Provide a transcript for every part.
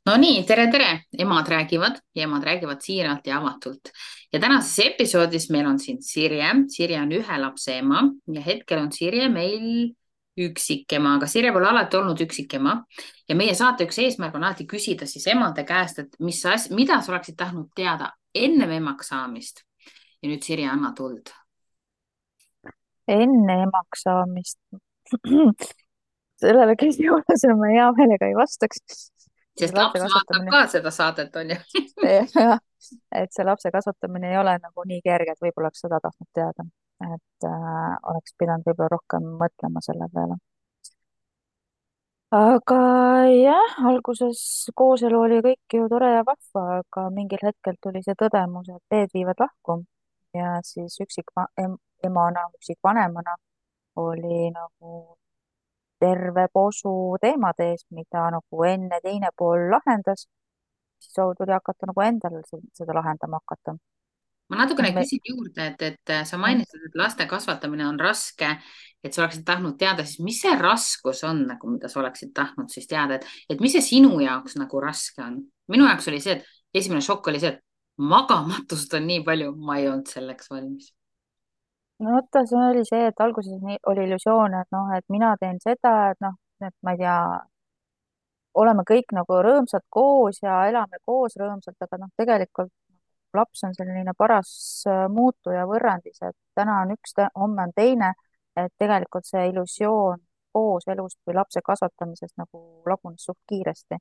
No nii, tere, emad räägivad siiralt ja avatult. Ja tänases episoodis meil on siin Sirje. Sirje on ühe lapse ema ja hetkel on Sirje meil üksikema, aga Sirje pole alati olnud üksikema. Ja meie saate üks eesmärk on alati küsida siis emade käest, et mida sa oleksid tahtnud teada ennem emaks saamist. Ja nüüd Sirje, anna tuld. Enne emaks saamist. Sellele küsimusele ma hea meelega ei vastaks. See Sest lapse laps vaatab kasvatamine, ka seda saadet, on ju. jah, et see lapse kasvatamine ei ole nagu nii kerge, et võib-olla oleks seda tahtnud teada. Et oleks pidanud võib-olla rohkem mõtlema selle peale. Aga jah, alguses kooselu oli kõik ju tore ja vahva, aga mingil hetkel tuli see tõdemus, et teed viivad lahku ja siis emana, üksikvanemana oli nagu terve posu teemade ees, mida nagu enne teine pool lahendas, siis tuli hakata nagu endal seda lahendama hakata. Ma noh, natukene me, küsin juurde, et sa jah, mainisid, et laste kasvatamine on raske, et sa oleksid tahtnud teada, siis mis see raskus on nagu, mida sa oleksid tahtnud siis teada, et mis see sinu jaoks nagu raske on? minu jaoks oli see, et esimene šokk oli see, et magamatust on nii palju, ma ei olnud selleks valmis. no vaata, see oli see, et alguses oli illusioon, et noh, et mina teen seda, et noh, et ma ei tea, oleme kõik nagu rõõmsad koos ja elame koos rõõmsalt, aga noh, tegelikult laps on selline paras muutuja võrrandis, et täna on üks, homme on teine, et tegelikult see illusioon kooselust või lapse kasvatamisest nagu lagunes suht kiiresti.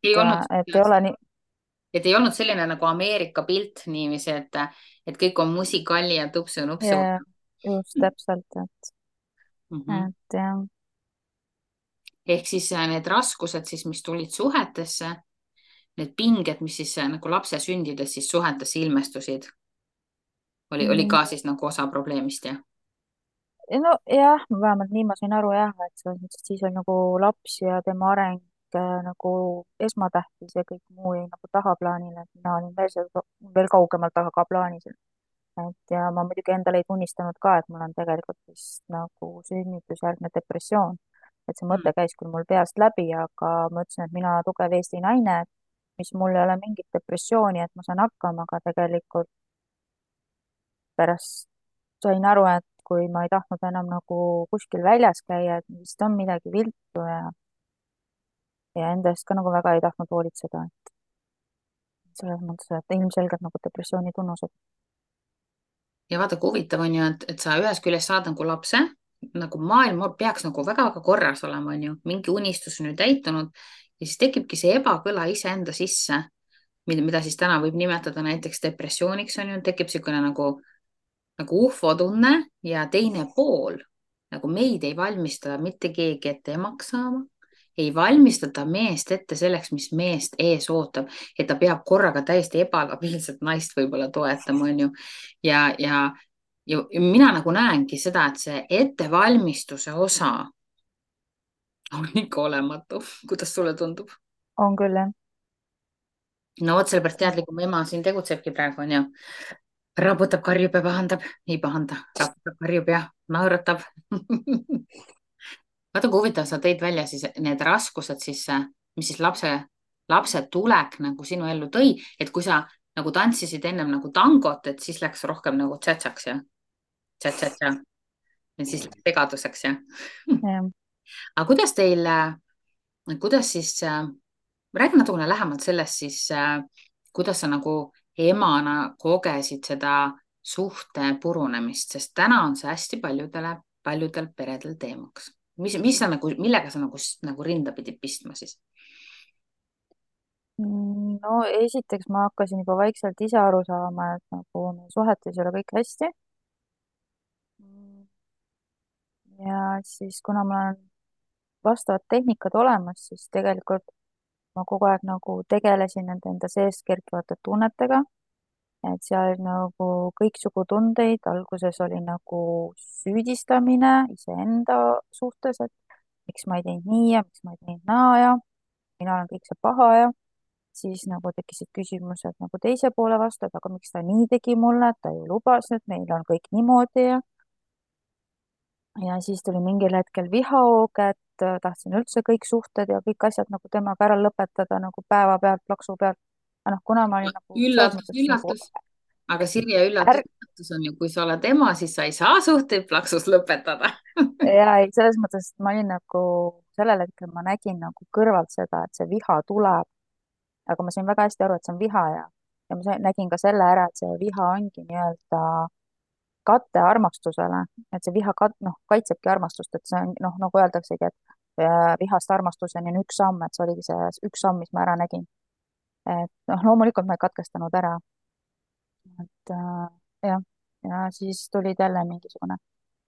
ei olnud, Et ei ole nii, et ei olnud selline nagu Ameerika pilt niiviisi, et kõik on musikalli ja tupsu-nupsu. ja just täpselt, Mhm. et jah. Ehk siis need raskused siis, mis tulid suhetesse, need pinged, mis siis nagu lapse sündides siis suhetesse ilmestusid, oli Mm, ka siis nagu osa probleemist, jah? no jah, vähemalt nii ma sain aru jah, et selles mõttes, et siis on nagu laps ja tema areng nagu esmatähtis ja kõik muu jäi nagu tahaplaanile, et mina olin veel kaugemalt tagaplaanis. Et ja ma muidugi endale ei tunnistanud ka, et mul on tegelikult vist nagu sünnitusjärgne depressioon. Et see Mm. mõte käis küll mul peast läbi, aga ma ütlesin, et mina tugev Eesti naine, mis mul ei ole mingit depressiooni, et ma saan hakkama, aga tegelikult pärast sain aru, et kui ma ei tahtnud enam nagu kuskil väljas käia, et vist on midagi viltu ja enda eest ka nagu väga ei tahtnud hoolitseda. Selles mõttes, et ilmselgelt nagu depressiooni tunnused. Ja vaata, kui huvitav on ju, et sa ühest küljest saad nagu lapse, nagu maailm peaks nagu väga-väga korras olema, on ju, mingi unistus on ju täitunud ja siis tekibki see ebakõla iseenda sisse, mida siis täna võib nimetada näiteks depressiooniks, on ju, tekib niisugune nagu ufo-tunne ja teine pool, nagu meid ei valmista mitte keegi ette emaks saama, ei valmistata meest ette selleks, mis meest ees ootab, et ta peab korraga täiesti ebalabiilset naist võib-olla toetama, onju. Ja mina nagu näengi seda, et see ettevalmistuse osa on ikka olematu. Kuidas sulle tundub? On küll, jah. No vot, sellepärast teadlikum ema siin tegutsebki praegu, onju. Raputab, karjub ja pahandab, ei pahanda, raputab, karjub ja naeratab. vaata, kui huvitav, sa tõid välja siis need raskused siis, mis siis lapse tulek nagu sinu ellu tõi, et kui sa nagu tantsisid ennem nagu tangot, et siis läks rohkem nagu tšatšaks ja tšatšatša ja siis läks segaduseks ja. Jah. aga kuidas siis, räägi natukene lähemalt sellest siis, kuidas sa nagu emana kogesid seda suhte purunemist, sest täna on see hästi paljudel peredel teemaks. Mis sa nagu, millega sa nagu rinda pidid pistma siis? No esiteks ma hakkasin juba vaikselt ise aru saama, et nagu meie suhetes ei ole kõik hästi. Ja siis, kuna mul on vastavad tehnikad olemas, siis tegelikult ma kogu aeg nagu tegelesin nende enda seest kerkivate tunnetega, et seal nagu kõiksugu tundeid, alguses oli nagu süüdistamine iseenda suhtes, et miks ma ei teinud nii ja miks ma ei teinud naa ja mina olen kõik see paha ja siis nagu tekkisid küsimused nagu teise poole vastu, et aga miks ta nii tegi mulle, et ta ju lubas, et meil on kõik niimoodi ja siis tuli mingil hetkel vihahoog, tahtsin üldse kõik suhted ja kõik asjad nagu temaga ära lõpetada nagu päevapealt, plaksu pealt. aga noh, kuna ma olin nagu selles üllatus, mõttes nagu üllatus. Aga Sirje, üllatus, ärk- üllatus on ju, kui sa oled ema, siis sa ei saa suhteid plaksus lõpetada. ja ei, selles mõttes, et ma olin nagu sellel hetkel ma nägin nagu kõrvalt seda, et see viha tuleb, aga ma sain väga hästi aru, et see on viha ja nägin ka selle ära, et see viha ongi nii-öelda kate armastusele, et see viha noh, kaitsebki armastust, et see on noh, nagu öeldaksegi, et vihast armastuseni on üks samm, et see oligi see üks samm, mis ma ära nägin. et noh, loomulikult ma ei katkestanud ära, et jah, ja siis tulid jälle mingisugune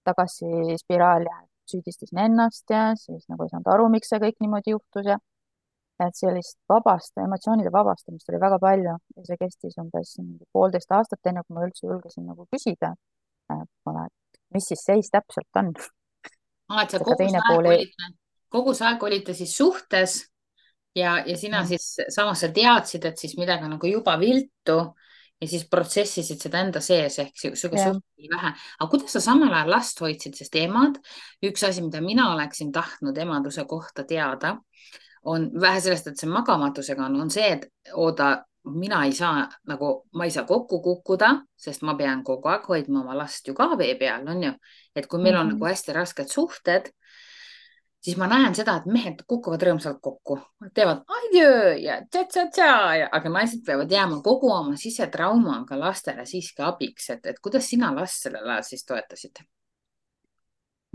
tagasispiraal ja süüdistasin ennast ja siis nagu ei saanud aru, miks see kõik niimoodi juhtus ja et sellist emotsioonide vabastamist oli väga palju ja see kestis umbes 1,5 aastat, enne kui ma üldse julgesin nagu küsida, et kuule, et mis siis seis täpselt on. Et sa ega teine pool ei, kogu see aeg olite siis suhtes ja sina jah, siis samas sa teadsid, et siis midagi on nagu juba viltu ja siis protsessisid seda enda sees ehk sihuke jah, suht vähe. aga kuidas sa samal ajal last hoidsid, sest emad, üks asi, mida mina oleksin tahtnud emaduse kohta teada, on vähe sellest, et see magamatusega on see, et oota, mina ei saa nagu, ma ei saa kokku kukkuda, sest ma pean kogu aeg hoidma oma last ju ka vee peal, on ju. et kui meil on nagu hästi rasked suhted, siis ma näen seda, et mehed kukuvad rõõmsalt kokku, teevad adjöö ja tša-tša-tša, aga naised peavad jääma kogu oma sisetraumaga lastele siiski abiks, et kuidas sina last sellel ajal siis toetasid?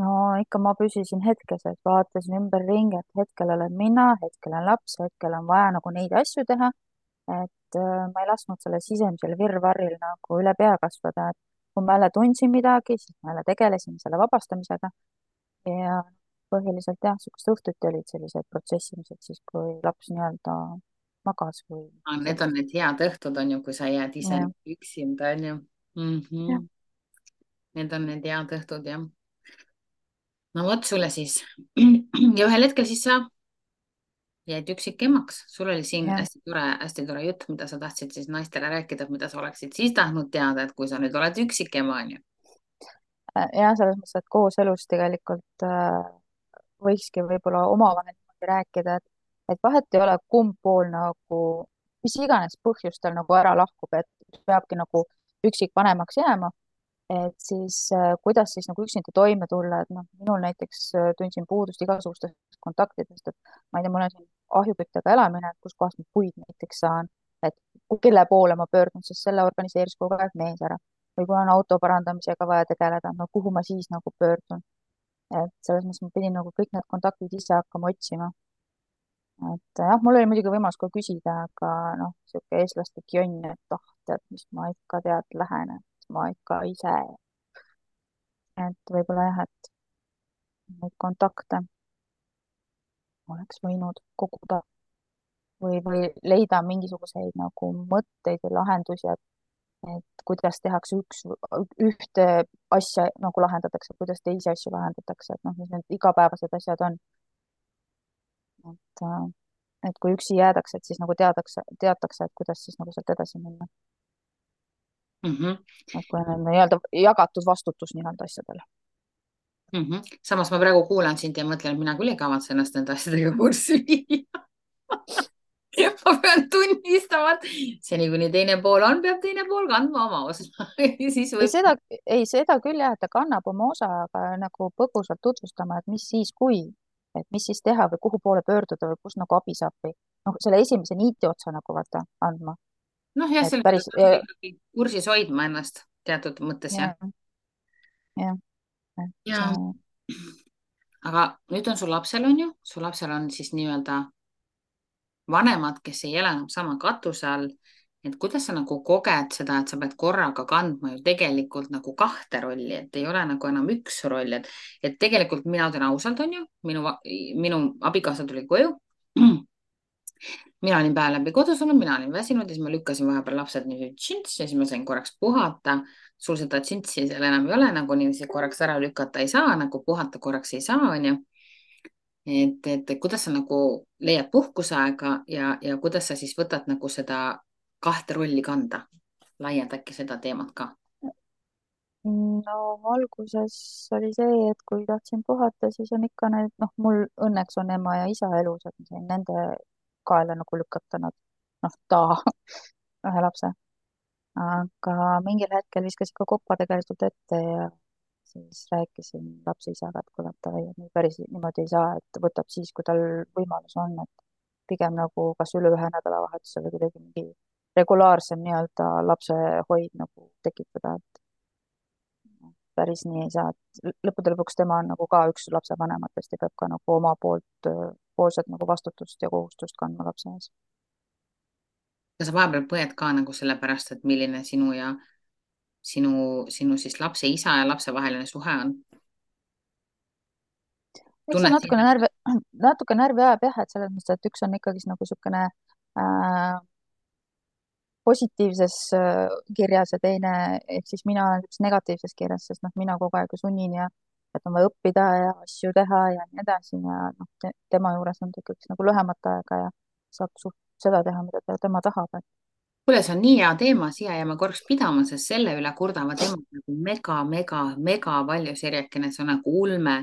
no ikka ma püsisin hetkes, et vaatasin ümberringi, et hetkel olen mina, hetkel on laps, hetkel on vaja nagu neid asju teha, et ma ei lasknud sellel sisemisel virvarril nagu üle pea kasvada, et kui ma jälle tundsin midagi, siis ma jälle tegelesin selle vabastamisega ja põhiliselt jah, niisugused õhtuti olid sellised protsessimised siis, kui laps nii-öelda magas või Need on need head õhtud, on ju, kui sa jääd ise jah, üksinda, on ju mm. jah, Need on need head õhtud, jah. No vot sulle siis. ja ühel hetkel siis sa jäid üksikemaks. Sul oli siin jah, hästi tore jutt, mida sa tahtsid siis naistele rääkida, mida sa oleksid siis tahtnud teada, et kui sa nüüd oled üksikema, on ju. jah, selles mõttes, et kooselus tegelikult võikski võib-olla omavahel niimoodi rääkida, et vahet ei ole, kumb pool nagu mis iganes põhjustel nagu ära lahkub, et peabki nagu üksikvanemaks jääma, et siis kuidas siis nagu üksinda toime tulla, et noh, minul näiteks tundsin puudust igasugustest kontaktidest, et ma ei tea, mul on siin ahjuküttega elamine, et kuskohast ma puid näiteks saan, et kelle poole ma pöördun, sest selle organiseeris kogu aeg mees ära. või kui on auto parandamisega vaja tegeleda, no kuhu ma siis nagu pöördun. et selles mõttes ma pidin nagu kõik need kontaktid ise hakkama otsima. et jah, mul oli muidugi võimalus ka küsida, aga noh, niisugune eestlaslik jonn, et oh, tead, mis ma ikka tead, lähen, et ma ikka ise. et võib-olla jah, et neid kontakte oleks võinud koguda või leida mingisuguseid nagu mõtteid ja lahendusi, et kuidas tehakse ühte asja nagu lahendatakse, kuidas teisi asju lahendatakse, et noh, mis need igapäevased asjad on. et, et kui üksi jäädakse, et siis nagu teatakse, et kuidas siis nagu sealt edasi minna. Mm -hmm. et kui on nii-öelda jagatud vastutus nii-öelda asjadel. Mm -hmm. Samas ma praegu kuulan sind ja mõtlen, et mina küll ei kavatse ennast nende asjadega kurssi viia. ma pean tunnistama, et seni kuni teine pool on, peab teine pool kandma oma osa siis ei, võib. seda küll jah, et ta kannab oma osa, aga nagu põgusalt tutvustama, et mis siis, kui, et mis siis teha või kuhu poole pöörduda või kus nagu abi saab või noh, selle esimese niiti otsa nagu vaata andma. noh, jah, et selles päris mõttes peab ikkagi kursis hoidma ennast teatud mõttes, jah. jah, jah, et ja aga nüüd on sul lapsel, on ju, su lapsel on siis nii-öelda vanemad, kes ei ela enam sama katuse all. et kuidas sa nagu koged seda, et sa pead korraga kandma ju tegelikult nagu kahte rolli, et ei ole nagu enam üks roll, et tegelikult mina ütlen ausalt, on ju, minu abikaasa tuli koju. mina olin päev läbi kodus olnud, mina olin väsinud ja siis ma lükkasin vahepeal lapsed niiviisi tšints ja siis ma sain korraks puhata. sul seda tšintsi seal enam ei ole, nagu niiviisi korraks ära lükata ei saa, nagu puhata korraks ei saa, on ju. et kuidas sa nagu leiad puhkuseaega ja kuidas sa siis võtad nagu seda kahte rolli kanda? laienda äkki seda teemat ka. no alguses oli see, et kui tahtsin puhata, siis on ikka need, noh, mul õnneks on ema ja isa elus, et ma sain nende kaela nagu lükata nad, noh, ühe lapse. aga mingil hetkel viskas ikka kopa tegelikult ette ja siis rääkisin lapse isaga, et kuule, et davai, et nii päris niimoodi ei saa, et võtab siis, kui tal võimalus on, et pigem nagu kas üle ühe nädalavahetuse või kuidagi mingi regulaarsem nii-öelda lapsehoid nagu tekitada, et päris nii ei saa, et lõppude lõpuks tema on nagu ka üks lapsevanematest ja peab ka nagu oma poolset nagu vastutust ja kohustust kandma lapse ees. kas sa vahepeal põed ka nagu sellepärast, et milline sinu ja sinu siis lapse isa ja lapse vaheline suhe on? eks see tunned natukene sind? närvi, natuke närvi ajab jah, et selles mõttes, et üks on ikkagi nagu niisugune positiivses kirjas ja teine, ehk siis mina olen niisuguses negatiivses kirjas, sest noh, mina kogu aeg ju sunnin ja et on vaja õppida ja asju teha ja nii edasi ja noh tema juures on ta ikkagi nagu lühemat aega ja saab suht seda teha, mida tema tahab, et kuule, see on nii hea teema, siia jääme korraks pidama, sest selle üle kurdavad emad nagu mega palju, Sirjekene, see on nagu ulme.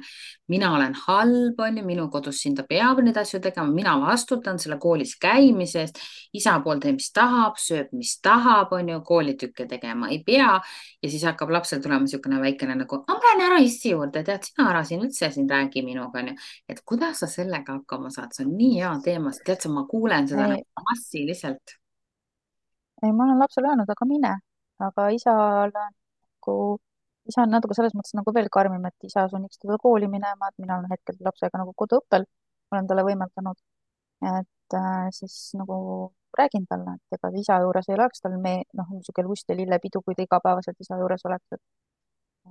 mina olen halb, onju, minu kodus siin ta peab neid asju tegema, mina vastutan selle koolis käimise eest. isa pool teeb, mis tahab, sööb, mis tahab, onju, koolitükke tegema ei pea. ja siis hakkab lapsel tulema niisugune väikene nagu, ma lähen ära issi juurde, tead, sina ära siin üldse siin räägi minuga, onju. et kuidas sa sellega hakkama saad, see on nii hea teema, sest tead sa, ma kuulen seda ei, nagu massiliselt. ei, ma olen lapsele öelnud, aga mine, aga isal on nagu, isa on natuke selles mõttes nagu veel karmim, et isa sunniks teda kooli minema, et mina olen hetkel lapsega nagu koduõppel, olen talle võimaldanud, et siis nagu räägin talle, et ega isa juures ei oleks tal noh, niisugune lust ja lillepidu, kui ta igapäevaselt isa juures oleks,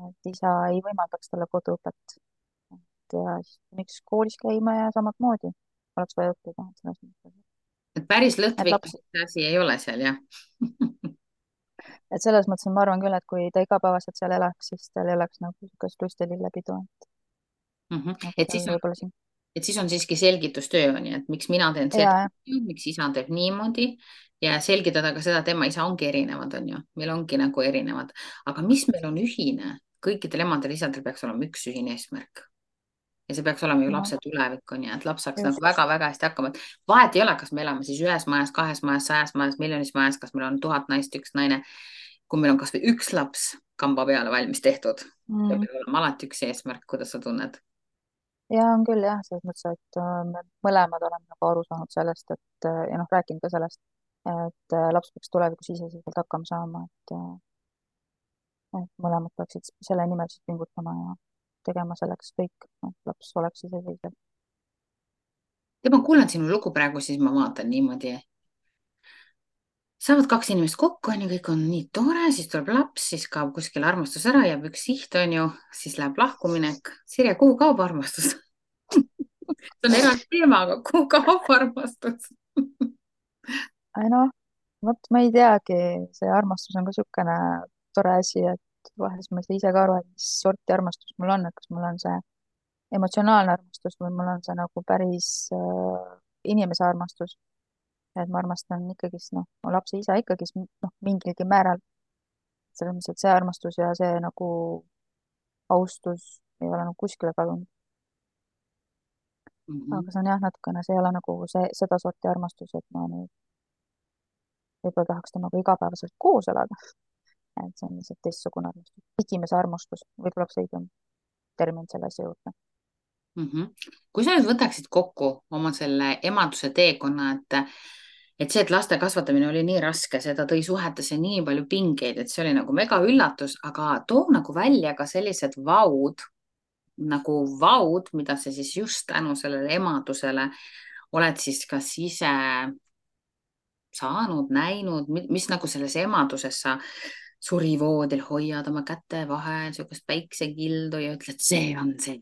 et isa ei võimaldaks talle koduõpet. et ja siis miks koolis käima ja samamoodi oleks vaja õppida, et selles mõttes, et päris et lõtvik laps, asi ei ole seal, jah. et selles mõttes ma arvan küll, et kui ta igapäevaselt seal elaks, siis tal ei oleks nagu niisugust lust ja lillepidu, et nagu et tal siis on, võib-olla siin. et siis on siiski selgitustöö on ju, et miks mina teen seda, ja, miks isa teeb niimoodi ja selgitada ka seda, et tema isa ongi erinevad, on ju, meil ongi nagu erinevad, aga mis meil on ühine, kõikidel emadel-isadel peaks olema üks ühine eesmärk. ja see peaks olema ju no lapse tulevik, on ju, et laps saaks nagu just. väga-väga hästi hakkama, et vahet ei ole, kas me elame siis ühes majas, kahes majas, 100 majas, miljonis majas, kas meil on 1000 naist, üks naine. kui meil on kasvõi üks laps kamba peale valmis tehtud, Mm. peab olema alati üks eesmärk, kuidas sa tunned? ja on küll jah, selles mõttes, et me mõlemad oleme nagu aru saanud sellest, et ja noh, rääkinud ka sellest, et laps peaks tulevikus iseseisvalt hakkama saama, et mõlemad peaksid selle nimel siis pingutama ja tegema selleks kõik, et laps oleks iseseisev. ja ma kuulan sinu lugu praegu, siis ma vaatan niimoodi. saavad kaks inimest kokku, on ju, kõik on nii tore, siis tuleb laps, siis kaob kuskil armastus ära, jääb üks siht, on ju, siis läheb lahkuminek. Sirje, kuhu kaob armastus? see on eraldi teema, aga kuhu kaob armastus? ei noh, vot ma ei teagi, see armastus on ka niisugune tore asi, et vahest ma ei saa ise ka aru, et mis sorti armastus mul on, et kas mul on see emotsionaalne armastus või mul on see nagu päris inimese armastus. et ma armastan ikkagist, noh, mu lapse isa ikkagist, noh, mingilgi määral. selles mõttes, et see armastus ja see nagu austus ei ole nagu kuskile kadunud. Mhm. aga see on jah, natukene, see ei ole nagu seda sorti armastus, et ma nüüd võib-olla tahaks temaga igapäevaselt koos elada. et see on lihtsalt teistsugune armastus. igimese armastus, võib-olla oleks õigem termin selle asja juurde. kui sa nüüd võtaksid kokku oma selle emaduse teekonna, et see, et laste kasvatamine oli nii raske, seda tõi suhetesse nii palju pingeid, et see oli nagu mega üllatus, aga too nagu välja ka sellised vaud, mida sa siis just tänu sellele emadusele oled siis kas ise saanud, näinud, mis nagu selles emaduses sa surivoodil hoiad oma käte vahel sihukest päiksekildu ja ütled, see on see.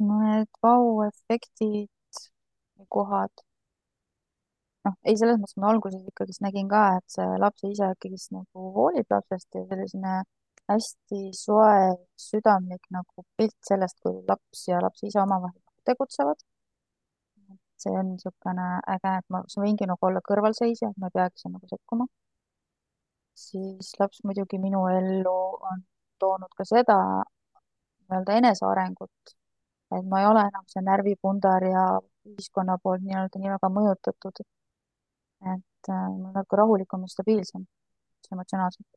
Need vau-efektid, kohad, noh, ei, selles mõttes ma alguses ikkagist nägin ka, et see lapse isa ikkagist nagu hoolib lapsest ja selline hästi soe, südamlik nagu pilt sellest, kui laps ja lapse isa omavahel tegutsevad. see on niisugune äge, et ma võingi nagu olla kõrvalseisja, et ma ei peagi seal nagu sekkuma. siis laps muidugi minu ellu on toonud ka seda nii-öelda enesearengut, et ma ei ole enam see närvipundar ja ühiskonna poolt nii-öelda nii väga mõjutatud, et ma olen natuke rahulikum ja stabiilsem emotsionaalselt.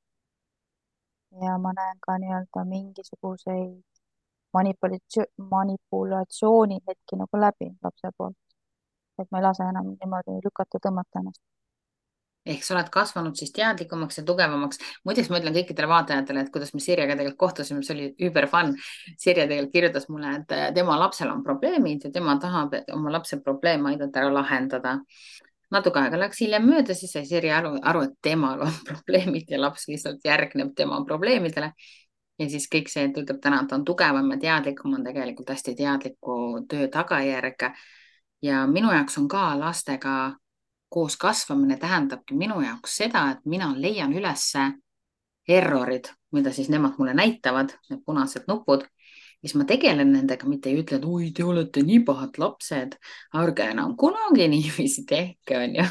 Ja ma näen ka nii-öelda mingisuguseid manipulatsiooni hetki nagu läbi lapse poolt, et ma ei lase enam niimoodi lükata, tõmmata ennast. ehk sa oled kasvanud siis teadlikumaks ja tugevamaks. muideks ma ütlen kõikidele vaatajatele, et kuidas me Sirjega tegelikult kohtusime, see oli über fun. Sirje tegelikult kirjutas mulle, et tema lapsel on probleemid ja tema tahab oma lapse probleeme aidata ära lahendada. Natuke aega läks hiljem mööda, siis sai Sirje aru, et temal on probleemid ja laps lihtsalt järgneb tema probleemidele. Ja siis kõik see, et ütleb täna, et ta on tugevam ja teadlikum, on tegelikult hästi teadliku töö tagajärg. Ja minu jaoks on ka lastega koos kasvamine tähendabki minu jaoks seda, et mina leian ülesse errorid, mida siis nemad mulle näitavad, need punased nupud. Siis ma tegelen nendega, mitte ei ütle, et oi, te olete nii pahad lapsed, ärge enam kunagi niiviisi tehke, onju.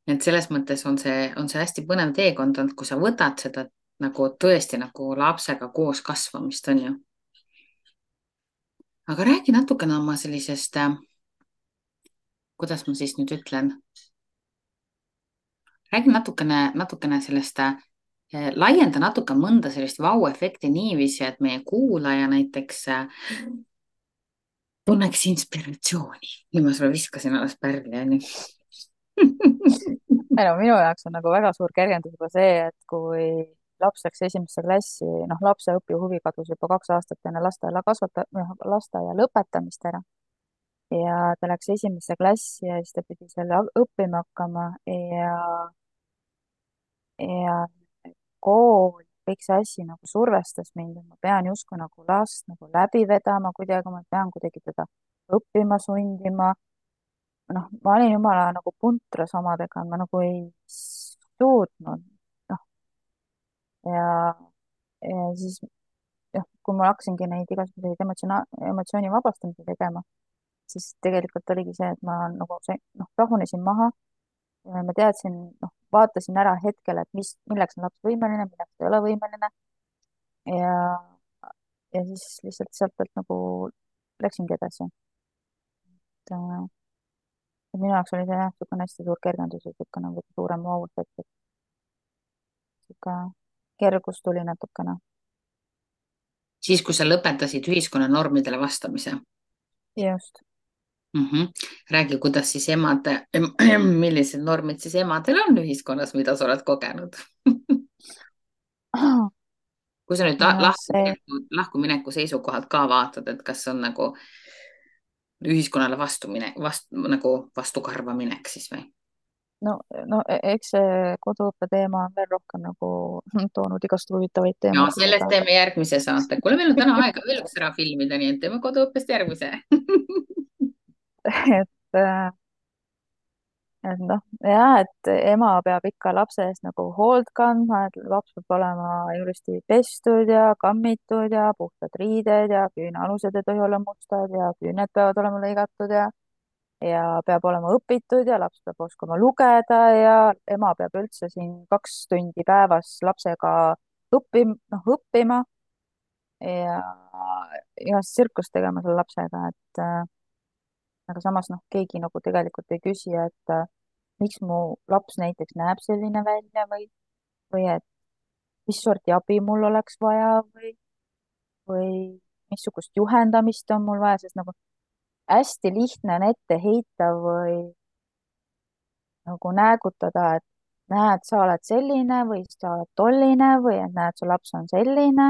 Et selles mõttes on see hästi põnev teekond olnud, kui sa võtad seda nagu tõesti nagu lapsega koos kasvamist, onju. Aga räägi natukene oma sellisest, kuidas ma siis nüüd ütlen, räägi natukene sellest, laienda natuke mõnda sellist vau-efekti niiviisi, et meie kuulaja näiteks tunneks inspiratsiooni. Nii ma sulle viskasin alles pärli, onju. ei no minu jaoks on nagu väga suur kergendus juba see, et kui laps läks esimesse klassi, noh, lapse õpihuvi kadus juba 2 aastat enne lasteaia lõpetamist ära ja ta läks esimesse klassi ja siis ta pidi seal õppima hakkama ja kool, kõik see asi nagu survestas mind, et ma pean justkui nagu last nagu läbi vedama kuidagi, ma pean kuidagi teda õppima sundima. noh, ma olin jumala nagu puntras omadega, ma nagu ei suutnud, noh, ja, ja siis jah, kui ma hakkasingi neid igasuguseid emotsiooni vabastamisi tegema, siis tegelikult oligi see, et ma nagu noh, rahunesin maha ja ma teadsin, noh, vaatasin ära hetkel, et milleks on laps võimeline, milleks ta ei ole võimeline ja, ja siis lihtsalt sealt pealt nagu läksingi edasi. Et minu jaoks oli see jah, niisugune hästi suur kergendus ja niisugune nagu suurem vau-efekt, et niisugune kergus tuli natukene. Siis, kui sa lõpetasid ühiskonna normidele vastamise. just. Räägi, kuidas siis millised normid siis emadel on ühiskonnas, mida sa oled kogenud? Kui sa nüüd ja see, lahkumineku seisukohalt ka vaatad, et kas on nagu ühiskonnale nagu vastukarva minek siis või? no eks see koduõppe teema on veel rohkem nagu toonud igast huvitavaid ja teemasid, sellest teeme järgmise saate. kuule, meil on täna aega veel üks ära filmida, nii et teeme koduõppest järgmise. et et noh, jah, et ema peab ikka lapse eest nagu hoolt kandma, et laps peab olema ilusti pestud ja kammitud ja puhtad riided ja küünealused ei tohi olla mustad ja küüned peavad olema lõigatud ja peab olema õpitud ja laps peab oskama lugeda ja ema peab üldse siin 2 tundi päevas lapsega õppima ja igast tsirkust tegema selle lapsega, et aga samas noh, keegi nagu tegelikult ei küsi, et miks mu laps näiteks näeb selline välja või et mis sorti abi mul oleks vaja või missugust juhendamist on mul vaja, sest nagu hästi lihtne on ette heita või nagu näägutada, et näed, sa oled selline või sa oled tolline või et näed, su laps on selline.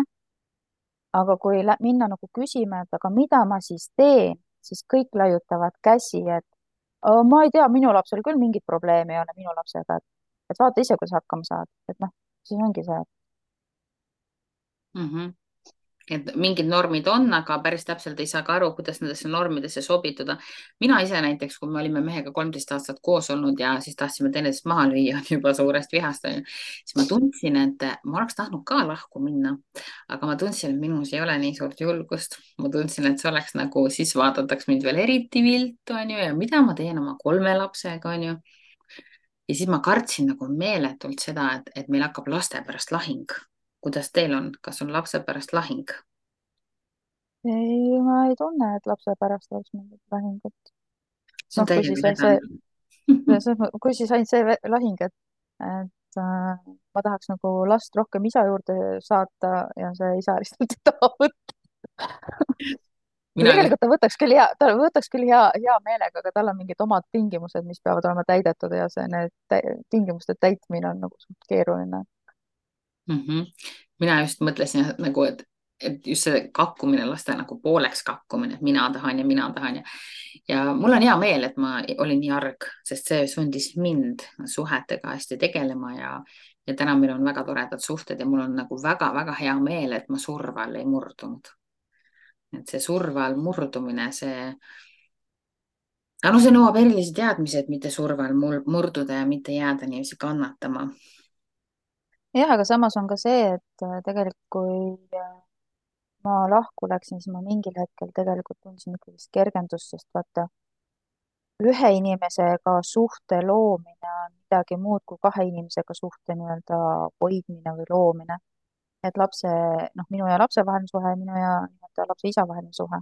aga kui minna nagu küsima, et aga mida ma siis teen, siis kõik laiutavad käsi, et ma ei tea, minu lapsel küll mingit probleemi ei ole minu lapsega, et vaata ise, kuidas hakkama saad, et noh, siis ongi see. Et mingid normid on, aga päris täpselt ei saa ka aru, kuidas nendesse normidesse sobituda. mina ise näiteks, kui me olime mehega 13 aastat koos olnud ja siis tahtsime teineteist maha lüüa juba suurest vihast, siis ma tundsin, et ma oleks tahtnud ka lahku minna, aga ma tundsin, et minus ei ole nii suurt julgust. ma tundsin, et see oleks nagu, siis vaadataks mind veel eriti viltu, onju, ja mida ma teen oma 3 lapsega, onju. ja siis ma kartsin nagu meeletult seda, et meil hakkab laste pärast lahing. kuidas teil on, kas on lapse pärast lahing? ei, ma ei tunne, et lapse pärast oleks mingit lahingut. see on noh, täiega hädane. kui siis ainult see lahing, et ma tahaks nagu last rohkem isa juurde saata ja see isa lihtsalt ei taha võtta. või mina just, tegelikult ta võtaks küll hea meelega, aga tal on mingid omad tingimused, mis peavad olema täidetud ja tingimuste täitmine on nagu suht keeruline. mina just mõtlesin nagu, et just see kakkumine, laste nagu pooleks kakkumine, et mina tahan ja mina tahan ja mul on hea meel, et ma olin nii arg, sest see sundis mind suhetega hästi tegelema ja täna meil on väga toredad suhted ja mul on nagu väga-väga hea meel, et ma surve all ei murdunud. et see surve all murdumine, aga no see nõuab erilisi teadmisi, et mitte surve all murduda ja mitte jääda niiviisi kannatama. jah, aga samas on ka see, et tegelikult kui ma lahku läksin, siis ma mingil hetkel tegelikult tundsin ikkagist kergendust, sest vaata, ühe inimesega suhte loomine on midagi muud kui kahe inimesega suhte nii-öelda hoidmine või loomine. et lapse, noh, minu ja lapse vaheline suhe ja minu ja nii-öelda lapse isa vaheline suhe.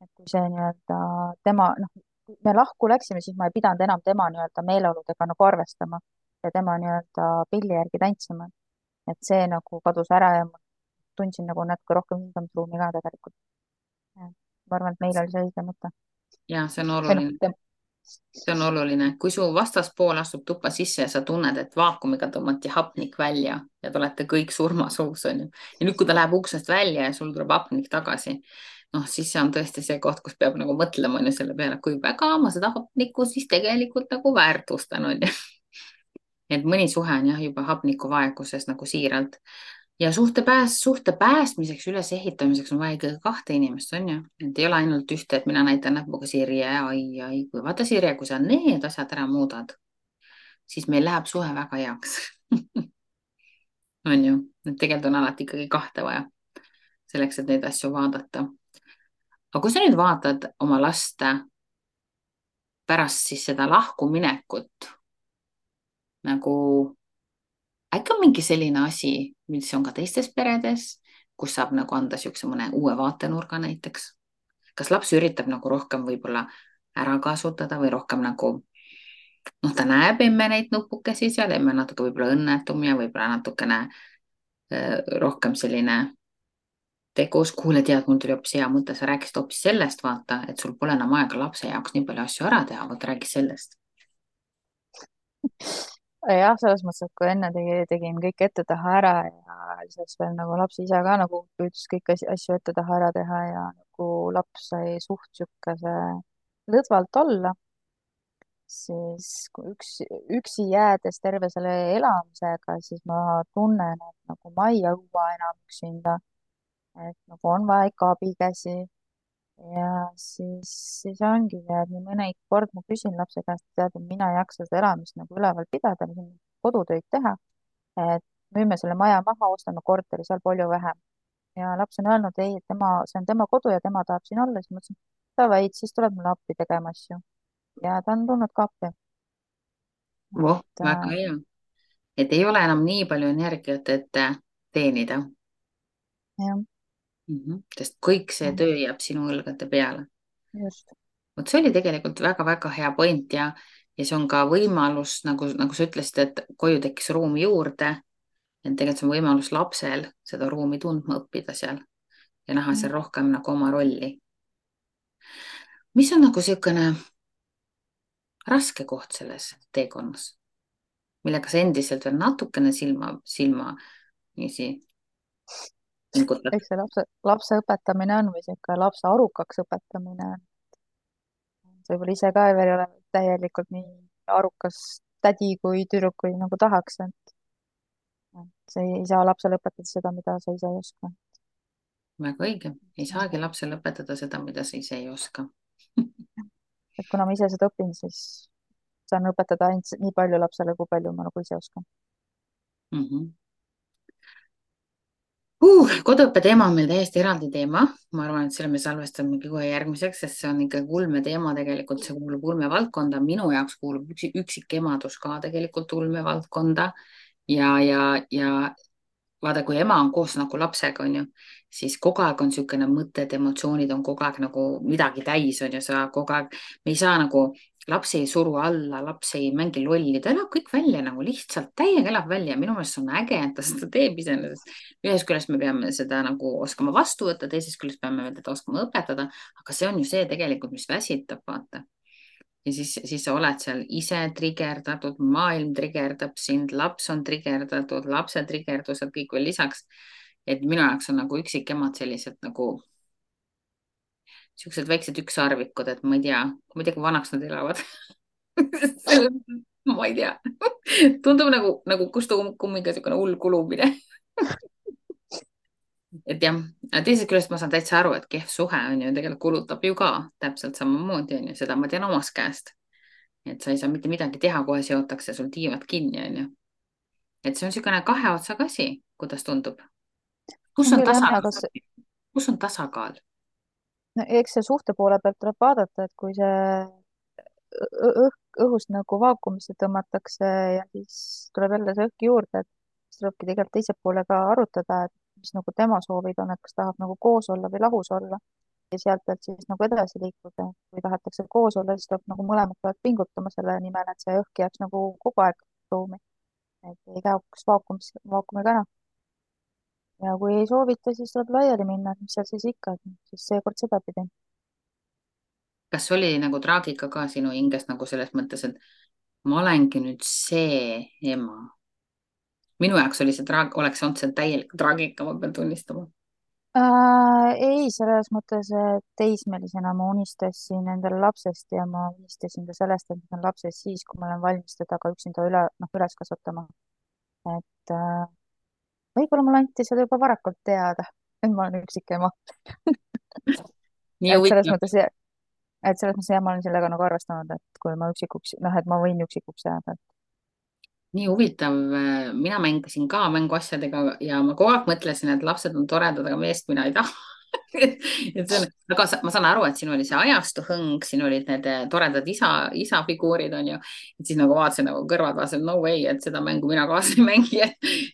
et kui see nii-öelda tema, noh, kui me lahku läksime, siis ma ei pidanud enam tema nii-öelda meeleoludega nagu arvestama ja tema nii-öelda pilli järgi tantsima. et see nagu kadus ära ja ma tundsin nagu natuke rohkem hingamisruumi ka tegelikult. ma arvan, et meil oli see õige mõte. ja see on või noh, oluline. see on oluline, kui su vastaspool astub tuppa sisse ja sa tunned, et vaakumiga tõmmati hapnik välja ja te olete kõik surmasuus, onju. ja nüüd, kui ta läheb uksest välja ja sul tuleb hapnik tagasi, noh, siis see on tõesti see koht, kus peab nagu mõtlema onju selle peale, kui väga ma seda hapnikku siis tegelikult nagu väärtustan, onju. et mõni suhe on jah juba hapnikuvaeguses nagu siiralt ja suhte päästmiseks, ülesehitamiseks on vaja ikkagi kahte inimest, on ju. et ei ole ainult ühte, et mina näitan näpuga Sirje, ai, kui vaata Sirje, kui sa need asjad ära muudad, siis meil läheb suhe väga heaks. on ju, et tegelikult on alati ikkagi kahte vaja selleks, et neid asju vaadata. aga kui sa nüüd vaatad oma last pärast siis seda lahkuminekut nagu äkki on mingi selline asi, mis on ka teistes peredes, kus saab nagu anda niisuguse mõne uue vaatenurga näiteks. kas laps üritab nagu rohkem võib-olla ära kasutada või rohkem nagu, noh, ta näeb emme neid nupukesi seal, emme on natuke võib-olla õnnetum ja võib-olla natukene rohkem selline tegus. kuule, tead, mul tuli hoopis hea mõte, sa rääkisid hoopis sellest, vaata, et sul pole enam aega lapse jaoks nii palju asju ära teha, vot räägi sellest. jah, selles mõttes, et kui enne tegin kõik ette-taha ära ja lisaks veel nagu laps ise ka nagu püüdis kõiki asju ette-taha ära teha ja nagu laps sai suht siukese lõdvalt olla, siis kui üksi jäädes terve selle elamisega, siis ma tunnen, et nagu ma ei jõua enam üksinda, et nagu on vaja ikka abikäsi. ja siis ongi see, et nii mõni kord ma küsin lapse käest, tead, et mina ei jaksa seda elamist nagu üleval pidada, kodutöid teha, et müüme selle maja maha, ostame korteri, seal palju vähem. ja laps on öelnud, ei, et see on tema kodu ja tema tahab siin olla, siis ma ütlesin, davai, siis tuleb mulle appi tegema asju. ja ta on tulnud ka appi. voh, et väga hea. et ei ole enam nii palju energiat, et teenida. jah, Sest kõik see jah, töö jääb sinu õlgade peale. just. vot see oli tegelikult väga-väga hea point ja see on ka võimalus, nagu sa ütlesid, et koju tekkis ruumi juurde. et tegelikult see on võimalus lapsel seda ruumi tundma õppida seal ja näha seal rohkem nagu oma rolli. mis on nagu niisugune raske koht selles teekonnas, millega sa endiselt veel natukene silma niiviisi pingutad? eks see lapse õpetamine on või sihuke lapse arukaks õpetamine. sa võib-olla ise ka veel ei ole täielikult nii arukas tädi kui tüdruk, kui nagu tahaks, et sa ei saa lapsele õpetada seda, mida sa ise ei oska. väga õige, ei saagi lapsele õpetada seda, mida sa ise ei oska. et kuna ma ise seda õpin, siis saan õpetada ainult nii palju lapsele, kui palju ma nagu ise oskan. mm. -hmm. Koduõppe teema on meil täiesti eraldi teema. Ma arvan, et selle me salvestamegi kohe järgmiseks, sest see on ikka ulmeteema tegelikult, see kuulub ulmevaldkonda. Minu jaoks kuulub üksikemadus ka tegelikult ulmevaldkonda ja vaata, kui ema on koos nagu lapsega, onju, siis kogu aeg on niisugune mõtted, emotsioonid on kogu aeg nagu midagi täis, onju, sa kogu aeg, me ei saa nagu, laps ei suru alla, laps ei mängi lolli, ta elab kõik välja nagu lihtsalt täiega elab välja. Minu meelest see on äge, et ta seda teeb iseenesest. Ühest küljest me peame seda nagu oskama vastu võtta, teisest küljest peame teda oskama õpetada, aga see on ju see tegelikult, mis väsitab, vaata. Ja siis sa oled seal ise trigerdatud, maailm trigerdab sind, laps on trigerdatud, lapse trigerdused kõik veel lisaks. Et minu jaoks on nagu üksikemad sellised nagu siuksed väiksed ükssarvikud, et ma ei tea, kui vanaks nad elavad. ma ei tea. tundub nagu kustu kummiga siukene hull kulumine. Et jah, teisest küljest ma saan täitsa aru, et kehv suhe on ju tegelikult kulutab ju ka täpselt samamoodi on ju, seda ma tean omast käest. Et sa ei saa mitte midagi teha, kohe seotakse sul tiivad kinni on ju. Et see on niisugune kahe otsaga asi, kuidas tundub. kus on on küll jah, tasakaal, aga kus on tasakaal? no, eks see suhte poole pealt tuleb vaadata, et kui see õhust nagu vaakumisse tõmmatakse ja siis tuleb jälle see õhk juurde, et siis tulebki tegelikult teise poole ka arutada, et mis nagu tema soovid on, et kas tahab nagu koos olla või lahus olla ja sealt pealt siis nagu edasi liikuda. kui tahetakse koos olla, siis tuleb nagu mõlemad peavad pingutama selle nimel, et see õhk jääks nagu kogu aeg ruumi, et ei kaoks vaakumiga ära. ja kui ei soovita, siis tuleb laiali minna, et mis seal siis ikka, et siis seekord sedapidi. kas oli nagu traagika ka sinu hinges nagu selles mõttes, et ma olengi nüüd see ema? minu jaoks oli oleks olnud see täielik traagika, ma pean tunnistama. Ei, selles mõttes, et teismelisena ma unistasin endale lapsest ja ma unistasin ka sellest, et ma saan lapsest siis, kui ma olen valmis teda ka üksinda üles kasvatama. et võib-olla mulle anti seda juba varakult teada, et ma olen üksikema. nii et selles huvitav, mõttes, et selles mõttes jah, ma olen sellega nagu arvestanud, et kui ma üksikuks, noh, et ma võin üksikuks jääda. nii huvitav. mina mängisin ka mänguasjadega ja ma kogu aeg mõtlesin, et lapsed on toredad, aga meest mina ei taha. et see on, aga ma saan aru, et siin oli see ajastu hõng, siin olid need toredad isafiguurid onju. et siis nagu vaatasin nagu kõrvad vaatasin, no way, et seda mängu mina kaasa ei mängi.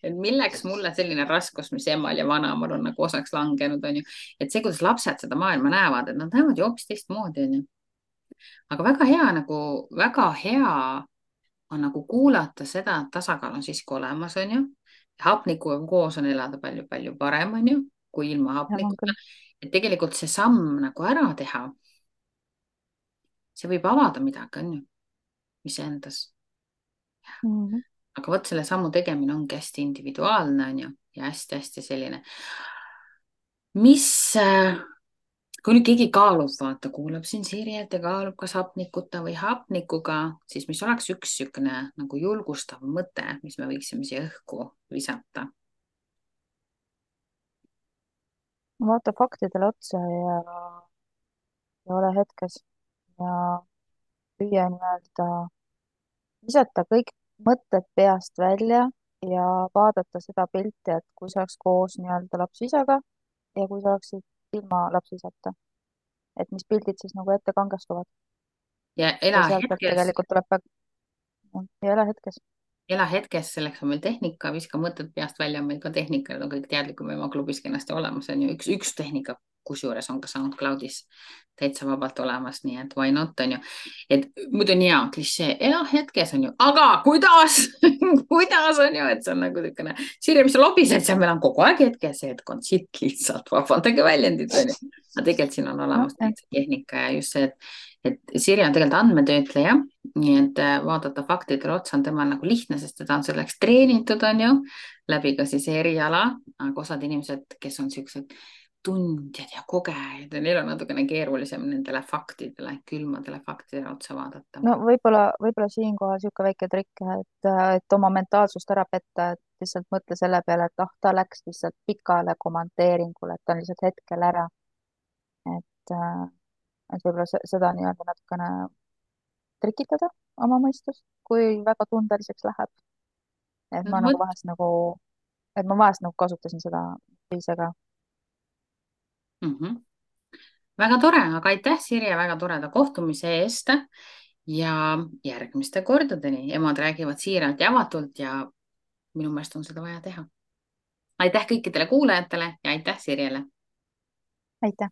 et milleks mulle selline raskus, mis emal ja vanaemal on nagu osaks langenud onju. et see, kuidas lapsed seda maailma näevad, et nad näevad ju hoopis teistmoodi onju. aga väga hea on nagu kuulata seda, et tasakaal on siiski olemas, onju. hapnikuga koos on elada palju-palju parem, onju, kui ilma jah, on hapnikuta. küll. et tegelikult see samm nagu ära teha, see võib avada midagi, onju, iseendas. Mhm. aga vot selle sammu tegemine ongi hästi individuaalne, onju, ja hästi-hästi selline, mis kui nüüd keegi kaalub, vaata, kuulab siin Sirjet ja kaalub, kas hapnikuta või hapnikuga, siis mis oleks üks niisugune nagu julgustav mõte, mis me võiksime siia õhku visata? vaata faktidele otsa ja ole hetkes ja püüa nii-öelda visata kõik mõtted peast välja ja vaadata seda pilti, et kui sa oleks koos nii-öelda laps-isaga ja kui sa oleksid ilma laps-isata, et mis pildid siis nagu ette kangestuvad ja ja sealt pealt tegelikult tuleb ja ole hetkes. ela hetkes, selleks on meil tehnika, viska mõtted peast välja, on meil ka tehnika, need on kõik teadlikum ema klubis kenasti olemas, on ju, üks tehnika, kusjuures on ka SoundCloudis täitsa vabalt olemas, nii et why not, on ju. et muidu on hea klišee, ela hetkes on ju, aga kuidas kuidas on ju, et see on nagu niisugune, Sirje, mis sa lobised seal, meil on kogu aeg hetkes, see hetk on sitt lihtsalt, vabandage väljendit, on ju. aga tegelikult siin on olemas nojah, täitsa tehnika ja just see, et Sirje on tegelikult andmetöötleja, nii et vaadata faktidele otsa on temal nagu lihtne, sest teda on selleks treenitud, on ju, läbi ka siis eriala, aga osad inimesed, kes on siuksed tundjad ja kogejad ja neil on natukene keerulisem nendele faktidele, külmadele faktidele otsa vaadata. no võib-olla siinkohal niisugune väike trikk, et oma mentaalsust ära petta, et lihtsalt mõtle selle peale, et ah, ta läks lihtsalt pikale kommenteeringule, et ta on lihtsalt hetkel ära. et võib-olla seda nii-öelda natukene trikitada oma mõistust, kui väga tundeliseks läheb. et ma nagu vot vahest nagu et ma vahest nagu kasutasin seda ise ka. mm. -hmm. väga tore, aga aitäh, Sirje, väga toreda kohtumise eest ja järgmiste kordadeni. emad räägivad siiralt ja avatult ja minu meelest on seda vaja teha. aitäh kõikidele kuulajatele ja aitäh Sirjele. aitäh!